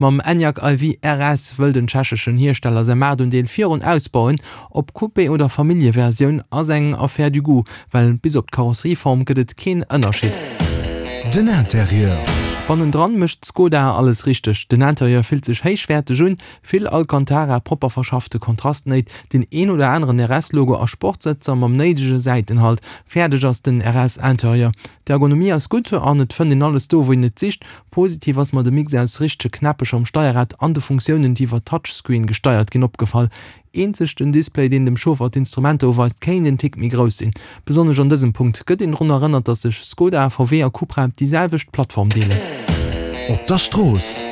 Mam Enyaq iV RS wëll den tschecheschen Hiersteller säi Maartundeel virun ausbauen. Ob Coupé oder Familljeversioun ass eng Affaire du goût, well bis op d'Karosserieform gëtt et keen Ënnerscheed. Den Interieur. Bannendran mécht Skoda alles richteg, den Interieur fillt sech héichwäerteg un, vill Alcantara, propper verschaffte Kontrastnéit, deen een oder aneren RS-Logo a Sportsëtzer mam néidege Säitenhalt. Fäerdeg ass den RS-Interieur. D'Ergonomie ass gutt an et fënnt een alles do wou een et sicht. Positiv ass mer de Mix aus richtege Knäppecher um Steierrad an de Funktiounen déi iwwer Touchscreen gesteiert ginn opgefall. Eenzeg den Display deen dem Chauffer d'Instrumenter uweist kéint en Tick méi grouss sinn. Besonnesch an dësem Punkt gëtt een drun erënnert dass sech Skoda, VW a Cupra déi selwecht Plattform deelen. Op der Strooss.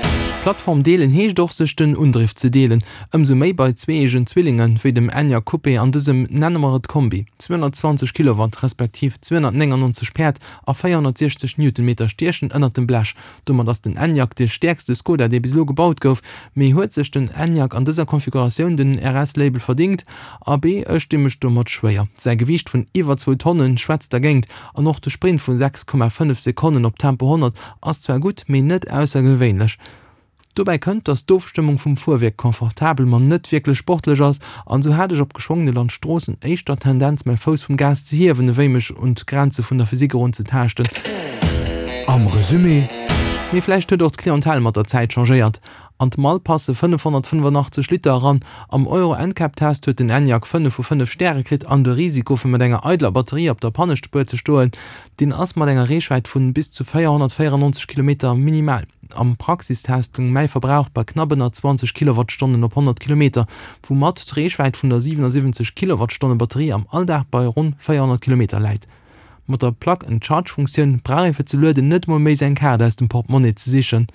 Plattform deelen heescht och sech den Undriff ze deelen. Ëmsou méi bei zweeëgen Zwillinge wéi dem Enyaq Coupé an dësem, nenne mer et Kombi. 220 Kilowatt respektiv 299 Päerd a 460 Newtonmeter stiechen ënnert dem Blech. Domat ass den Enyaq de stäerkste Skoda, dee bis elo gebaut gouf. Mee huet sech den Enyaq an dëser Konfiguratioun den RS-Label verdingt? Abee, ech di mech domat schwéier. Säi Gewiicht vun iwwer zwou Tonne schwätzt dergéint an och de Sprint vu 6,5 Sekonnen op Tempo 100 ass zwar gutt, mee net aussergewéinlech. Dobäi kënnt, dass d'Ofstëmmung vum Fuerwierk confortabel, ma net wierklech sportlech ass, an esou hat ech op geschwongene Landstroossen éischter d'Tendenz mäi Fouss vum Gas ze hiewen, ewéi mech un d'Grenze vun der Physik erun ze taaschten. Am Resumé. Mee vläicht huet och d'Clientèle mat der Zäit changéiert. An d'Mall passe 585 Liter eran. Am Euro NCAP Test huet den Enyaq 5 vu 5 Stäre kritt an de Risiko fir mat enger eideler Batterie op der Pannespuer ze stoen, deen ass mat enger Reechwäit vun bis zu 494 Kilometer minimal. Am Praxistest goung mäi Verbrauch bei knapp ënner 20 Kilowattstonnen op 100 Kilometer, woumat d'Reechwäit vun der 77 Kilowattstonne Batterie am Alldag bei ronn 400 Kilometer läit. Mat der Plug-and-Charge-Funktioun brauch ee fir ze lueden net emol méi seng Kaart aus dem Portemonnaie ze sichen.